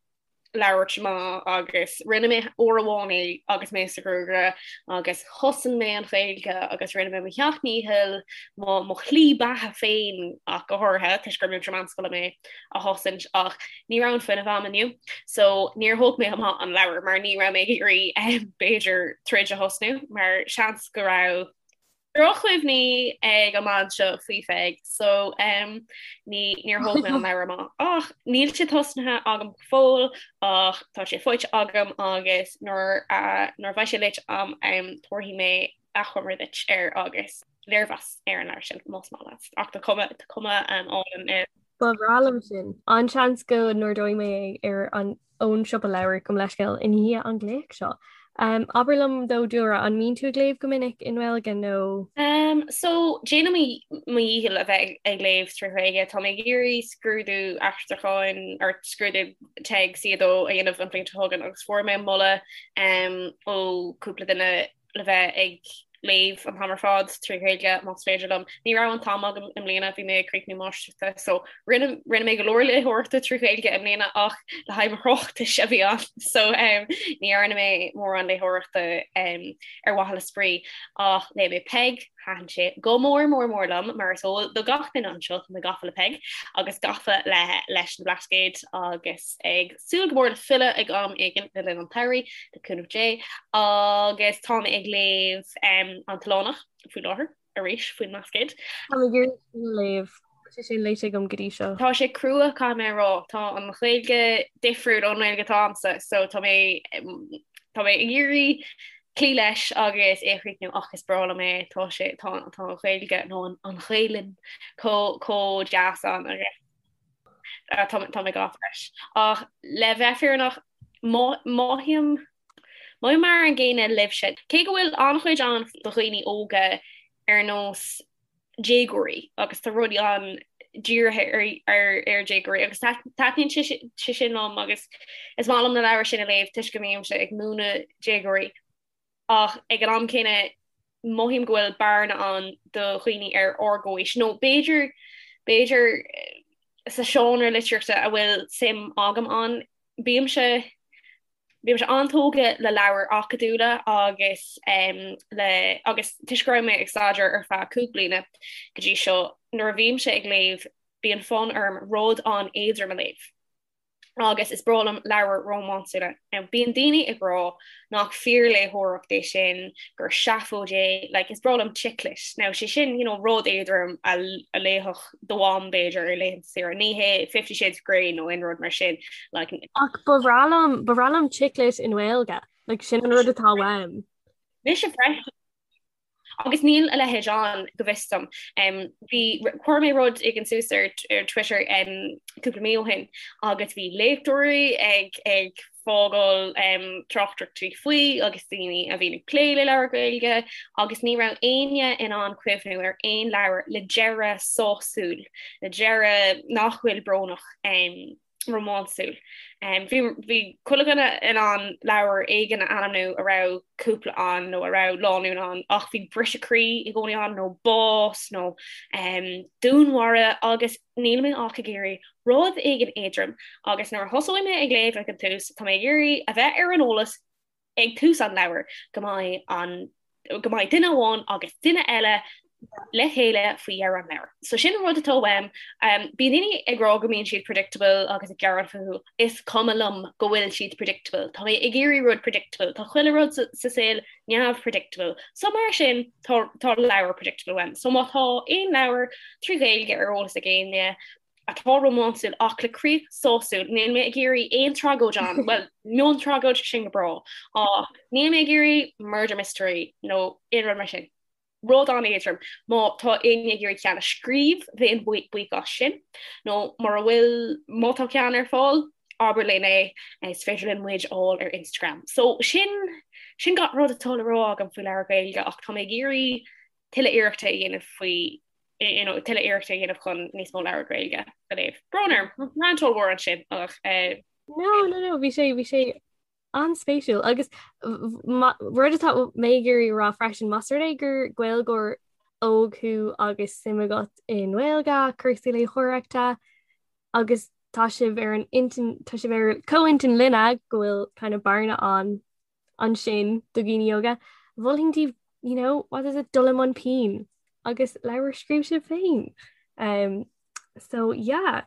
labhairt amach agus rinne mé uair amháin é agus mé sa ghruagaire agus chosain mé an Ghaeilge agus rinne mé mo sheacht ndícheall mo mo shlí beatha féin ach go háirithe toisc gur múinteoir meánscoile mé a chosaint ach ní raibh an fuinneamh agam inniu so níor thóg mé amach an leabhar mar ní raibh mé ag iarraidh b'fhéidir troid a thosnú mar seans go raibh drochchuimhní ag an mbean seo faoi Pheig so um, ní níor thóg mé an leabhar amach ach níl sé tosnaithe agam go fóill ach tá sé faighte agam agus nuair uh, nuair a bheidh sé léite agam um, tabharfaidh mé achoimre duit air agus léirmheas ar an leabhar sin más maith leat ach tá cuma tá cuma um, álainn air. Ba bhreá liom sin. An-seans go n-ordóidh mé é ar an ón siopa leabhar gabh mo leithscéal i ndiaidh an glaoch seo. Um, abair liom though Dúlra, an mbíonn tú ag léamh go minic i nGaeilge nó? Um, so déanaim mo dhícheall a bheith ag léamh trí Ghaeilge. Tá mé ag iarraidh scrúdú aistriúcháin or scrúdú TEG C2 a dhéanamh an bhliain seo chugainn agus fuair mé moladh um, ó cúpla duine le bheith ag léamh an t-am ar fad trí Ghaeilge más féidir liom. Ní raibh an t-am agam i mbliana, bhí mé ag críochnú máistreachta so rinne rinne mé go leor léitheoireachta trí Ghaeilge i mbliana ach le haghaidh mo thráchtais a bhí ann so um, ní dhearna mé mórán léitheoireachta um, ar mhaithe le spraoi ach léigh mé Peig, thaitin sé go mór mór mór liom mar is eol do gach duine anseo tá mé gafa le Peig agus gafa le leis na Blascaoid agus ag súil go mór le filleadh ag am éigin le linn an tsamhraidh le cúnamh Dé agus tá mé ag léamh um, an tOileánach faoi láthair arís faoin mBlascaod. Tá mé ag iarraidh sin a léamh. Tá sé sin léite agam go dtí seo. Tá sé crua caithfidh mé a rá. Tá an Ghaeilge difriúil ón nGaeilge atá agamsa so tá mé tá mé ag iarraidh cloí leis agus é a chríochnú ach is breá liom é tá sé tá tá an Ghaeilge nó an an Ghaelainn chomh chomh deas ann agus Tá mé gafa leis. Ach le bheith fírinneach, mothaím mothaím mar an gcéanna libhse. Cé go bhfuil an-chuid ann do dhaoine óga ar nós déagóirí agus tá rudaí ann dírithe ar ar déagóirí agus taitníonn sé sin liom agus is maith liom na leabhair sin a léamh toisc go mbímse ag múineadh déagóirí. Ach ag an am céanna mothaím go bhfuil bearna ann do dhaoine ar ár gcomhaois, nó b'fhéidir, b'fhéidir sa seánra litríochta a bhfuil suim agam ann. Bímse, bímse an-tógtha le leabhair acadúla agus le, agus toisc go raibh mé ag staidéar ar feadh 5 bliana go dtí seo, nuair a bhímse ag léamh bíonn fonn orm rud an-éadrom a léamh. agus is breá liom leabhair rómánsúla. Now bíonn daoine ag rá nach fíorléitheoireacht é sin, gur seafóid é, like is breá liom chick lit. Now sé sin, you know, rud éadrom a a léifeadh do mham b'fhéidir ar laethanta saoire, ní hé Fifty Shades of Grey nó aon rud mar sin, like. Ach ba bhreá liom, ba bhreá liom chick lit i nGaeilge, like sin an rud atá uaim. Mise freisin. Agus níl a leithéid ann, go bhfios dom. Bhí, chuir mé rud éigin suas ar ar Twitter cúpla mí ó shin agus bhí léachtóirí ag ag fágáil tráchtaireachtaí faoi agus daoine a bhíonn ag plé le leabhair Ghaeilge agus ní raibh éinne in ann cuimhniú ar aon leabhar le deireadh sásúil, le deireadh nach bhfuil brónach. rómánsúil. Bhí bhí chuile dhuine in ann leabhar éigin a ainmniú a raibh cúpla ann nó a raibh lánúin ann ach bhí briseadh croí i gcónaí ann nó bás nó dúnmharú agus níl mé ach ag iarraidh rud éigin éadrom agus nuair a thosóidh mé ag léamh ag an tús tá mé ag iarraidh a bheith ar an eolas ag tús an leabhair go mbeidh an go mbeidh duine amháin agus duine eile le chéile faoi dheireadh an leabhair. So sin an rud atá uaim. Um, bíonn daoine ag rá go mbíonn siad predictable agus ag gearán fúthu. Is cuma liom go bhfuil siad predictable. Tá mé ag iarraidh rud predictable. Tá chuile rud sa, sa saol neamh-predictable. So mar sin tá, tá leabhar predictable uaim. So má tá aon leabhar trí Ghaeilge ar eolas ag éinne, atá rómánsúil ach le críoch sásúil. Níl mé ag iarraidh aon tragóid ann, bhuel, miontragóid sin go breá, ach níl mé ag iarraidh murder mystery nó aon rud mar sin. Rud an-éadrom. Má tá éinne ag iarraidh ceann a scríobh, bheinn buíoch as sin. Nó mura bhfuil, má tá ceann ar fáil, abair linn é, is féidir linn muid a fháil ar Instagram. So sin, sin gach rud atá le rá agam faoi leabhar Gaeilge ach tá mé ag iarraidh tuilleadh iarrachta a dhéanamh faoi, you know, tuilleadh iarrachta a dhéanamh chun níos mó leabhar Gaeilge a léamh. Brón orm, rant ollmhór ansin ach eh. No, no, no, bhí sé, bhí sé An-spéisiúil. Agus rud atá mé ag iarraidh a rá freisin, más rud é gur Gaeilgeoir óg thú agus suim agat i nGaeilge, cúrsaí léitheoireachta, agus tá sibh ar an intinn, tá sibh ar comhintinn linne go bhfuil kind of bearna ann ansin do dhaoine óga, mholfainn daoibh, you know, what is it, dul i mbun pinn agus leabhar a scríobh sibh féin. Um, so yeah.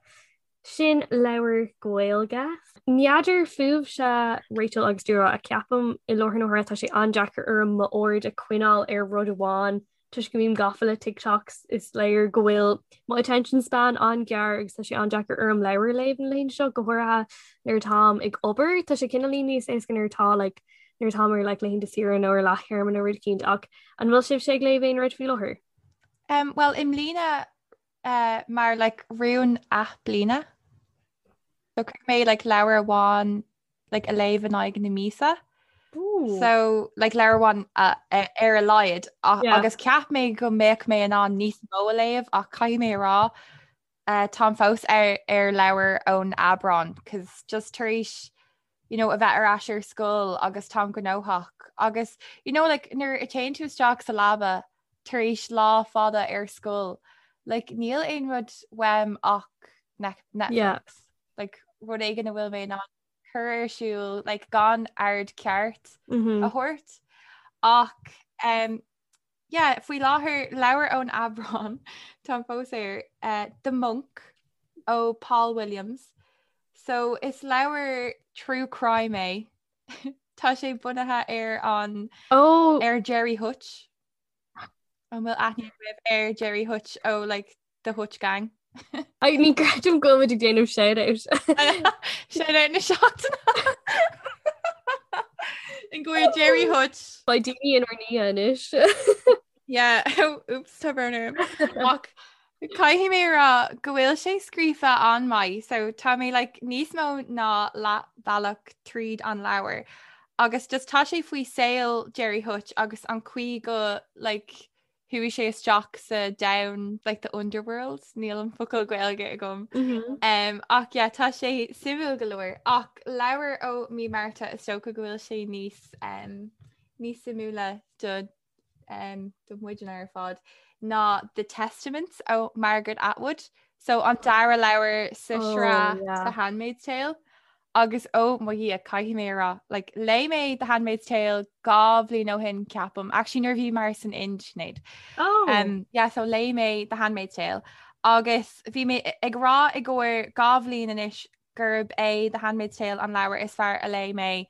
Sin leabhar Gaeilge. N'fheadar fúibhse Rachel agus Dúlra ach ceapaim i láthair na huaire tá sé an-deacair orm m'aird a choinneáil ar rud amháin toisc go mbím gafa le TikToks is léir go bhfuil mo attention span an-ghearr agus tá sé an-deacair orm leabhar a léamh na laethanta seo go háirithe nuair atáim ag obair. Tá sé cineáilín níos éasca nuair atá like nuair atáim ar like laethanta saoire nó ar leath-théarma nó rud eicínt ach an bhfuil sibhse ag léamh aon rud faoi láthair? Um, well i mbliana uh, mar like rún athbliana. So chuir mé like leabhar amháin like a léamh in aghaidh na míosa. So like leabhar amháin uh, ar a laghad yeah. agus cheap mé go mbeadh mé in ann níos mó a léamh ach caithfidh mé a rá uh, táim fós ar, ar leabhar ón Aibreán, cos just tar éis you know, a bheith ar ais ar scoil agus táim gnóthach agus you know, like, nuair a téann tú isteach sa leaba tar éis lá fada ar scoil, like, níl aon rud uaim ach Netflix. Yeah. Like, rud éigin a bhfuil mé in ann cur ar siúl like, gan aird ceart mm -hmm. a thabhairt. Ach um, Yeah, faoi láthair leabhar ón Aibreán táim fós air uh, The Monk ó Paul Williams. So is leabhar true crime é. Tá sé bunaithe ar an oh. ar Gerry Hutch. An bhfuil aithne agaibh ar Gerry Hutch ó like, The Hutch Gang. Ai ní creidim go bhfuil muid ag déanamh shout-out. Shout-out na seachtaine. In go Gerry Hutch. Beidh daoine inár ndiaidh anois. Yeah, oops, tá brón orm. Ach caithfidh mé a rá go bhfuil sé scríofa an-mhaith, so tá mé like, níos mó ná leathbhealach tríd an leabhar. Agus just tá sé faoi saol Gerry Hutch agus an chaoi go like, Chuaigh sé isteach sa domhan like the underworld, níl an focal Gaeilge agam. Mm -hmm. um, ach yeah, tá sé suimiúil go leor ach leabhar ó mí Márta is dócha go bhfuil sé níos um, níos suimiúla do um, do muidne ar fad ná The Testaments ó Margaret Atwood. So an dara leabhar sa oh, sraith yeah. The Handmaid's Tale. Agus ó mo Dhia, caithfidh mé a rá, like, léigh mé The Handmaid's Tale 2 bhliain ó shin, ceapaim, actually nuair a bhíomar san Ind, Sinéad. Oh! Um, yeah, so léigh mé The Handmaid's Tale agus bhí mé ag rá i gcomhair 2 bhliain anois gurb é The Handmaid's Tale an leabhar is fearr a léigh mé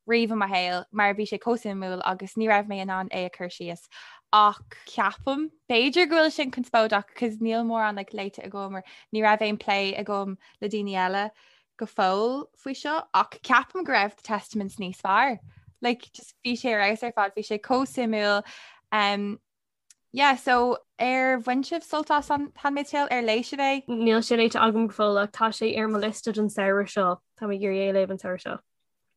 riamh i mo shaol mar bhí sé chomh suimiúil agus ní raibh mé in ann é a chur síos. Ach ceapaim, b'fhéidir go bhfuil sin conspóideach cos níl mórán like, léite agam or ní raibh aon plé agam le daoine eile go fóill faoi seo ach ceapaim go raibh The Testaments níos fearr. Like, just bhí sé ar fheabhas ar fad, bhí sé chomh suimiúil. Um, yeah, so ar bhain sibh sult as an Handmaid's Tale ar léigh sibh é? Níl sé léite agam go fóill ach tá sé ar mo liosta don samhradh seo. Tá mé ag iarraidh é a léamh an samhradh seo.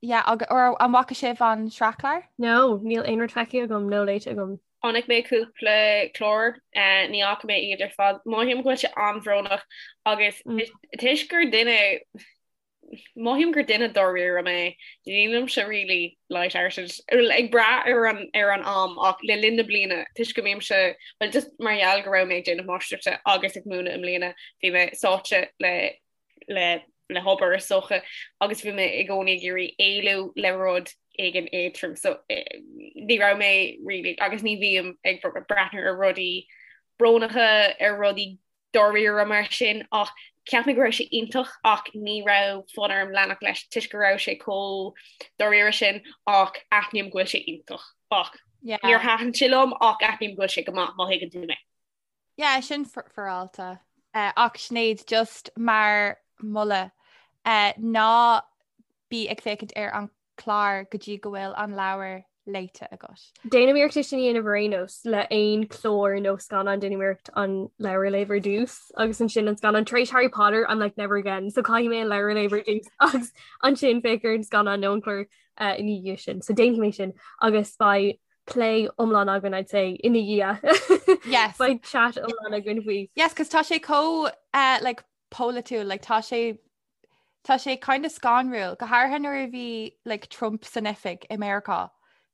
Yeah, agus or an bhfaca sibh an sraithchlár? No, níl aon rud feicthe agam nó léite agam. Chonaic mé cúpla clár, ní fhaca mé iad ar fad. Mothaím go bhfuil sé an-bhrónach agus toisc gur duine, mothaím gur duine dáiríre mé, nílimse really light-hearted, ag brath ar an ar an am ach le linn na bliana toisc go mbímse, well just mar gheall go raibh mé ag déanamh máistreachta agus ag múineadh i mbliana, bhí mé sáite le le le hobair is dócha agus bhí mé i gcónaí ag iarraidh éalú le rud éigin éadrom so ní raibh mé really agus ní bhím ag breathnú ar rudaí brónacha ar rudaí dáiríre mar sin ach cheap mé go raibh sé iontach ach ní raibh fonn orm leanacht leis toisc go raibh sé chomh dáiríre sin ach aithním go bhfuil sé iontach ach níor thaitin sé liom ach aithním go bhfuil sé go maith má thuigeann tú mé. Yeah, sin féaráilte. Ach Sinéad, just mar mholadh, ná bí ag féachaint ar an chlár go dtí go bhfuil an leabhar léite agat. Déanaim iarracht é sin a dhéanamh ar aon nós le aon chlár nó scannán déanaim iarracht an leabhar a léamh ar dtús agus ansin an scannán tar éis Harry Potter I'm like never again so caithfidh mé an leabhar a léamh ar dtús agus ansin féach ar an scannán nó an clár uh, ina dhiaidh sin so déanfaidh mé sin agus beidh plé iomlán againn I'd say ina dhiaidh. Yes. Beidh chat iomlán againn faoi. Yes, cos tá sé chomh uh, like polaitiúil like tá sé Tá sé kind of scanrúil, go háirithe nuair a bhí like, Trump san oifig i Meiriceá.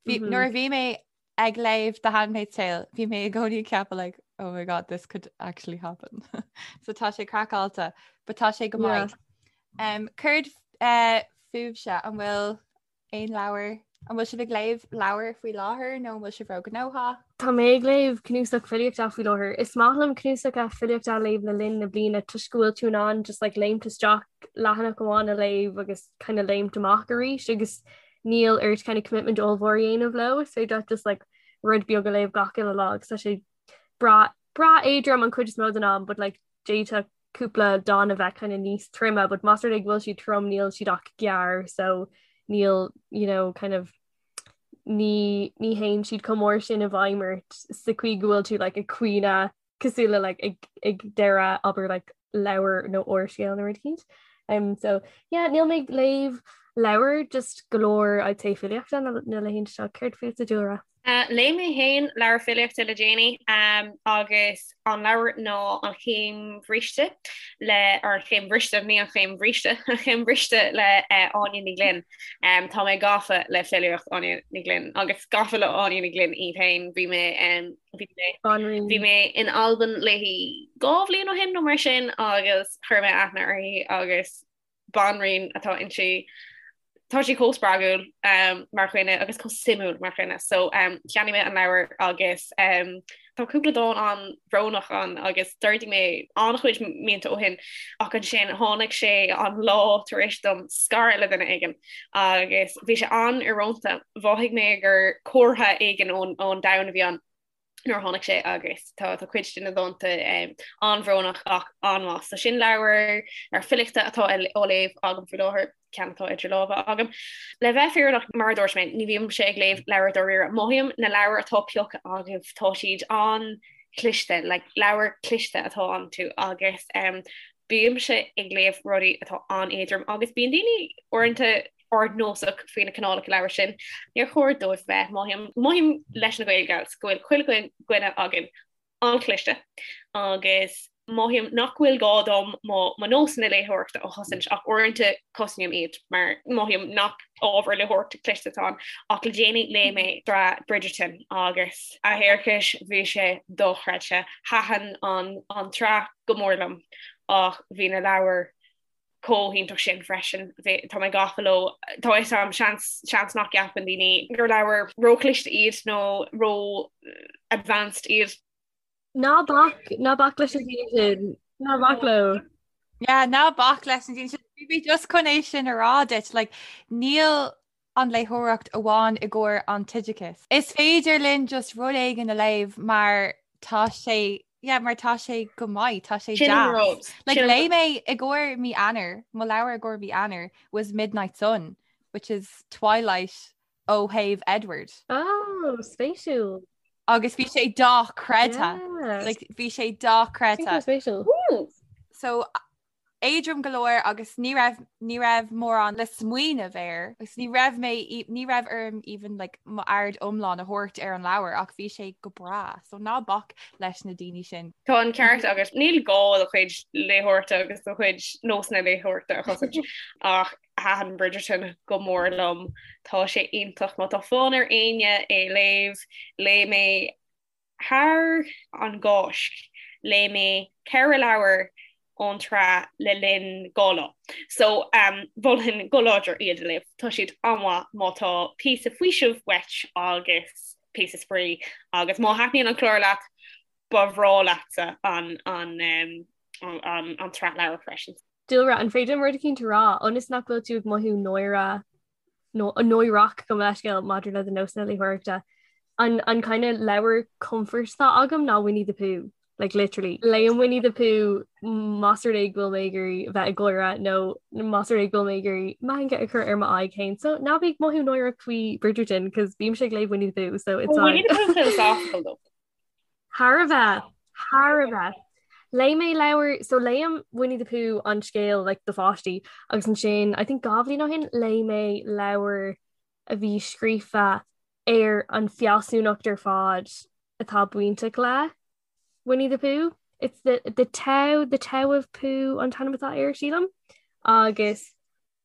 Bhí, mm -hmm. Nuair a bhí mé ag léamh The Handmaid's Tale, bhí mé i gcónaí ag ceapadh like, oh my god, this could actually happen. so tá sé craiceáilte, but tá sé go maith. Yeah. Um, Céard uh, fúibhse an bhfuil Aon leabhar? An bhfuil sibh ag léamh leabhar faoi láthair nó an bhfuil sibh róghnóthach? Tá mé ag léamh cnuasach filíochta faoi láthair. Is maith liom cnuasacha filíochta a léamh le linn na bliana toisc go bhfuil tú in ann just like léimt isteach leathanach amháin a léamh agus kind of léimt amach arís agus níl ort kind of commitment ollmhór a dhéanamh leo. Is féidir leat just like rud beag a léamh gach uile lá agus tá sé breá breá éadrom an chuid is mó den am but like d'fhéadfadh cúpla dán a bheith kind of níos troime, but más rud é go bhfuil siad trom níl siad ach gearr so níl you know kind of ní ní théann siad chomh mór sin i bhfeidhm ort sa chaoi go bhfuil tú like ag caoineadh cosúil le like ag ag deireadh abair like leabhar nó úrscéal nó rud éicint. Um, so yeah, níl mé ag léamh leabhar just go leor I'd say filíochta na na laethanta seo céard fútsa Dúlra? Léigh mé féin leabhar filíochta le déanaí agus an leabhar ná An Chéim Bhriste le, or An Chéim Bhriste, ní An Chéim Bhríste, An Chéim Bhriste le Áine Ní Ghlinn. Tá mé gafa le filíocht Áine Ní Ghlinn agus gafa le Áine Ní Ghlinn í féin. Bhí mé bhí mé bhí mé in Albain léi 2 bhliain ó shin nó mar sin agus chuir mé aithne uirthi agus banríon atá inti. Tá sí chomh spreagúil um, mar dhuine agus chomh suimiúil mar dhuine. So um, cheannaigh mé an leabhar agus um, tá cúpla dán an-bhrónach ann agus d'ardaigh mé an-chuid mianta ó shin ach ansin tháinig sé an lá tar éis dom scaradh le duine éigin agus bhí sé an-íorónta. Mhothaigh mé gur comhartha éigin ón, ón domhan a bhí ann. nuair a tháinig sé agus tá tá cuid de na dánta an-bhrónach ach an-mhaith. So sin leabhar ar filíochta atá á léamh agam faoi láthair, ceann atá idir lámha agam. Le bheith fírinneach mar a dúirt mé, ní bhímse ag léamh leabhar dáiríre. Mothaím na leabhair atá pioctha agaibh, tá siad an-chliste, like leabhar cliste atá iontu agus um, bímse ag léamh rudaí atá an-éadrom agus bíonn daoine uaireanta ardnósach faoi na cineálacha leabhar sin. Níor chóir dóibh bheith. Mothaím, mothaím leis na Gaelgals go bhfuil chuile dhuine againn an-chliste agus mothaím nach bhfuil gá dom mo mo nósanna léitheoireachta a chosaint ach uaireanta cosnaím iad mar mothaím nach ábhar léitheoireachta cliste atá ann ach le déanaí léigh mé sraith Bridgerton agus a thiarcais bhí sé dochreidte. Thaitin an an tsraith go mór liom ach bhí na leabhair chomh hiontach sin freisin. Tá mé gafa leo. Tá fhios a'm, seans, seans nach gceapann daoine gur leabhair róchliste iad nó ró-advanced iad. Ná bac, ná bac leis na daoine sin. Ná bac leo. Yeah, ná bac leis na daoine sin. Bhí mé just chun é sin a rá duit, like, níl an léitheoireacht amháin i gcomhair an t-oideachas. Is féidir linn just rud éigin a léamh mar tá sé yeah, mar tá sé go maith, tá sé deas. Like léigh mé i gcomhair mí Eanáir, mo leabhar i gcomhair mí Eanáir was Midnight Sun, which is Twilight ó thaobh Edward. Oh, spéisiúil. Agus bhí sé dochreidte. Yeah. Like, bhí sé dochreidte. Spéisiúil. So éadrom go leor agus ní raibh ní raibh mórán le smaoineamh air agus ní raibh mé ní raibh orm even like m'aird iomlán a thabhairt ar an leabhar ach bhí sé go breá so ná bac leis na daoine sin. Tá an ceart agat níl gá do chuid léitheoireachta agus do chuid nósanna léitheoireachta a chosaint ach thaitin Bridgerton go mór liom. Tá sé iontach má tá fonn ar éinne é léamh léigh mé Thar an gCáisc, léigh mé 4 leabhar ón tsraith le linn 2 lá. So, mholfainn go láidir iad a léamh. Tá siad an-mhaith má tá píosa faoisimh uait agus píosa spraoi agus má thaitníonn an clár leat, ba bhreá leatsa an an tsraith leabhar freisin. Dúlra, an féidir liom rud eicínt a rá, ionas nach bhfuil tú ag mothú náire nó náireach gabh mo leithscéal maidir le do nósanna léitheoireachta. An an kind of leabhar comfort atá agam ná Winnie the Pooh. Like literally. Léim Winnie the Pooh más rud é go bhfuil mé ag iarraidh bheith ag gáire nó más rud é go bhfuil mé ag iarraidh meangadh a chur ar m'aghaidh féin. So ná bí ag mothú náireach faoi Bridgerton cos bímse ag léamh Winnie the Pooh so it's Winnie the Pooh philosophical though. Thar a bheith, thar a bheith. Léigh mé leabhar, so léim Winnie the Pooh an scéal like do pháistí agus ansin I think 2 bhliain ó shin léigh mé leabhar a bhí scríofa ar an fealsúnacht ar fad atá bainteach le Winnie the Pooh. It's the, the Tao, the Tao of Pooh an t-ainm atá air sílim. Agus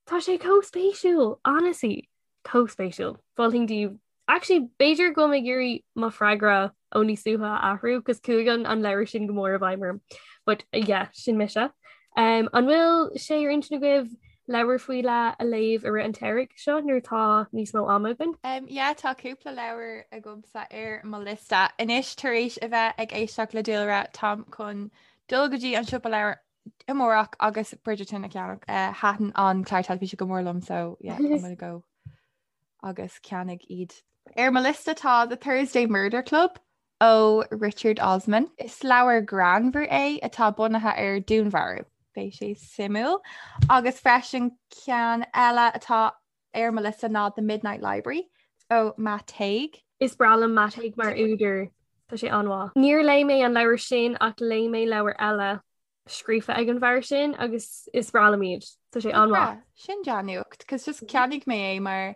tá sé chomh spéisiúil, honestly, chomh spéisiúil. Mholfainn daoibh Actually, b'fhéidir go bhfuil mé ag iarraidh mo freagra ó níos luaithe a athrú, cos chuaigh an an leabhar sin go mór i bhfeidhm orm. But yeah, sin mise. Um, an bhfuil sé ar intinn agaibh leabhar faoi leith a léamh i rith an tsamhraidh seo nuair atá níos mó ama againn? Um, yeah, tá cúpla leabhar agamsa ar mo liosta. Anois tar éis a bheith ag éisteacht le Dúlra, táim chun dul go dtí an siopa leabhar amárach agus Bridgerton a cheannach. Uh, Thaitin an clár teilifíse go mór liom, so yeah, I'm gonna go agus ceannaigh iad. Ar mo liosta tá The Thursday Murder Club ó Richard Osman. Is leabhar greannmhar é atá bunaithe ar dúnmharú. Beidh sé suimiúil. Agus freisin ceann eile atá ar mo liosta ná The Midnight Library ó Matt Haig. Is breá liom Matt Haig mar údar. Tá sé an-mhaith. Níor léigh mé an leabhar sin ach léigh mé leabhar eile scríofa ag an bhfear sin agus is breá liom iad. Tá sé an-mhaith. Sin dea-nuacht, cos just cheannaigh mé é mar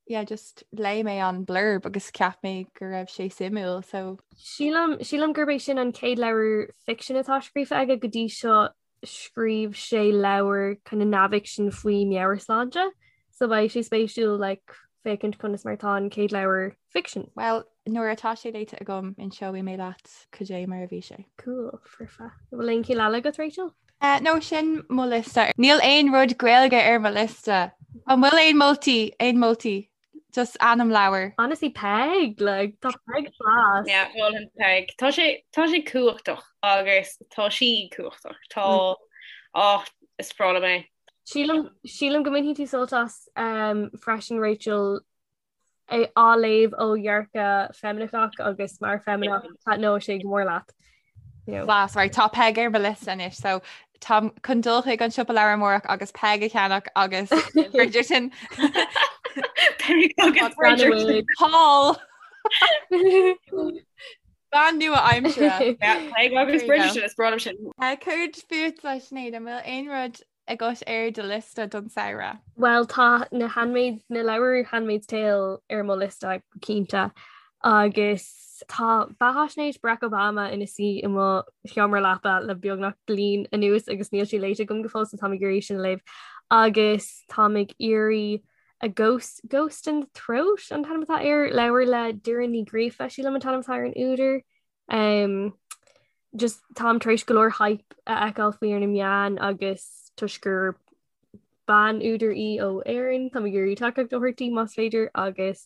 yeah, just léigh mé an blurb agus cheap mé go raibh sé suimiúil so. Sílim, sílim gurb é sin an chéad leabhar ficsin atá scríofa aige go dtí seo scríobh sé leabhar kind of neamhfhicsin faoi meabhairshláinte so beidh sé spéisiúil like féachaint conas mar atá an chéad leabhar ficsin. Well, nuair atá sé léite agam inseoidh mé leat cad é mar a bhí sé. Cool, foirfe. An bhfuil aon cheann eile agat, Rachel? Uh, no, sin mo liosta. Níl aon rud Gaeilge ar mo liosta. An bhfuil aon moltaí, aon moltaí? Just ainm leabhar. Honestly, Peig, like, tá Peig class. Yeah, mholfainn Peig. Tá sé, tá sé cumhachtach agus tá sí cumhachtach. Tá, mm. oh, is breá liom é. Sílim, sílim go mbainfidh tú sult as um, freisin Rachel é á léamh ó dhearcadh feimineach agus mar feimineach taitneoidh sé go mór leat. You know. Class, right, tá Peig ar mo liosta anois, so táim chun dul chuig an siopa leabhar amárach agus Peig a cheannach agus Bridgerton. Peig agus Bridgerton. Paul! Bean nua aimsire. Peig agus Bridgerton is breá liom sin. Céard fútsa Sinéad, an bhfuil aon rud agat ar do liosta don samhradh? Bhuel tá na Handmaid, na leabhair Handmaid's Tale ar mo liosta go cinnte agus tá beathaisnéis Barack Obama ina suí i mo sheomra leapa le beagnach bliain anuas agus níl sé léite agam go fóill so táim ag iarraidh sin a léamh agus táim ag iarraidh A Ghost, Ghost in the Throat an t-ainm atá air, leabhar le Doireann Ní Ghríofa sílim an t-ainm atá ar an údar. Um, just táim tar éis go leor hype a fheiceáil faoi ar na meáin agus toisc gur bean údar í ó Éirinn, táim ag iarraidh tacaíocht a thabhairt di más féidir agus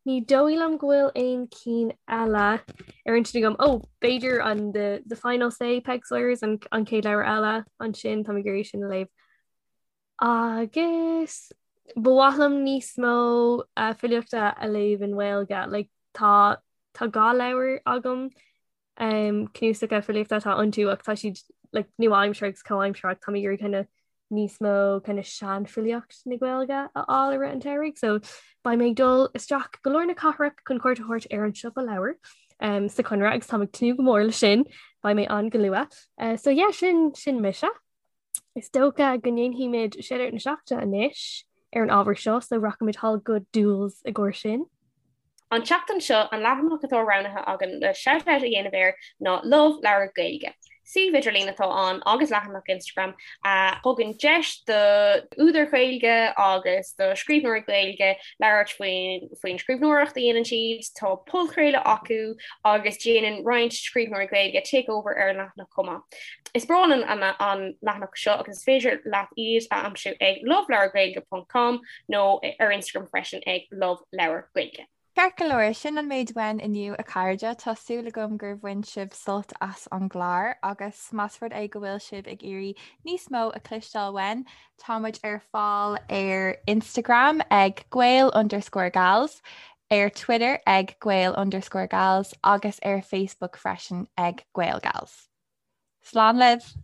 ní dóigh liom go bhfuil aon cinn eile ar intinn agam. Ó, b'fhéidir an the, the Final Say Peig Sayers an, an chéad leabhar eile ansin táim ag iarraidh sin a léamh. Agus ba mhaith liom níos mó uh, filíochta a léamh i nGaeilge. Like, tá tá dhá leabhar agam um, cnuasacha filíochta atá iontu ach tá siad like, nua-aimseartha agus comhaimseartha tá mé ag iarraidh kind of níos mó kind of seanfhilíocht na Gaeilge a fháil i rith an tsamhraidh, so beidh mé ag dul isteach go lár na cathrach chun cuairt a thabhairt ar an siopa leabhar um, sa Chonradh agus táim ag tnúth go mór leis sin, beidh mé ann go luath. Uh, so yeah, sin sin mise. Is dócha go ndéanfaimid Shout-Out na Seachtaine anois ar an ábhar seo, so rachaimid thall go Dúls i gcomhair sin. An tseachtain seo, an leathanach atá roghnaithe againn le shout-out a dhéanamh air ná Love Leabhar Gaeilge. Suíomh idirlín atá ann agus leathanach Instagram a thugann deis do údair Ghaeilge agus do scríbhneoirí Gaeilge labhairt faoin faoin scríbhneoireacht a dhéanann siad. Tá podchraoladh acu agus déanann roinnt scríbhneoirí Gaeilge takeover ar an leathanach chomh maith. Is breá linn an leathanach seo agus is féidir leat iad a aimsiú ag loveleabhargaeilge ponc com nó ar Instagram freisin ag loveleabhargaeilge. Ceart go leor, sin an méid uainn inniu a chairde. Tá súil agam gur bhain sibh sult as an gclár agus más rud é go bhfuil sibh ag iarraidh níos mó a chloisteáil uainn, tá muid ar fáil ar Instagram ag gael underscore gals. Ar Twitter ag Gael underscore Gals agus ar Facebook freisin ag GaelGals. Slán libh!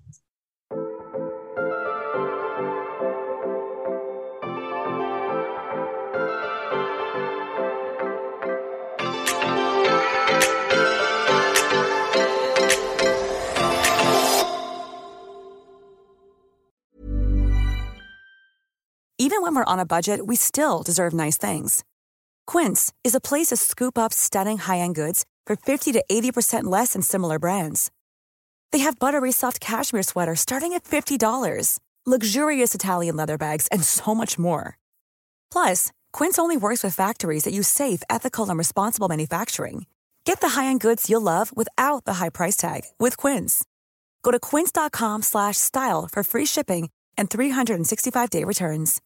Even when we're on a budget, we still deserve nice things. Quince is a place to scoop up stunning high-end goods for 50 to 80% less than similar brands. They have buttery soft cashmere sweaters starting at $50, luxurious Italian leather bags, and so much more. Plus, Quince only works with factories that use safe, ethical, and responsible manufacturing. Get the high-end goods you'll love without the high price tag with Quince. Go to quince.com/style for free shipping and 365-day returns.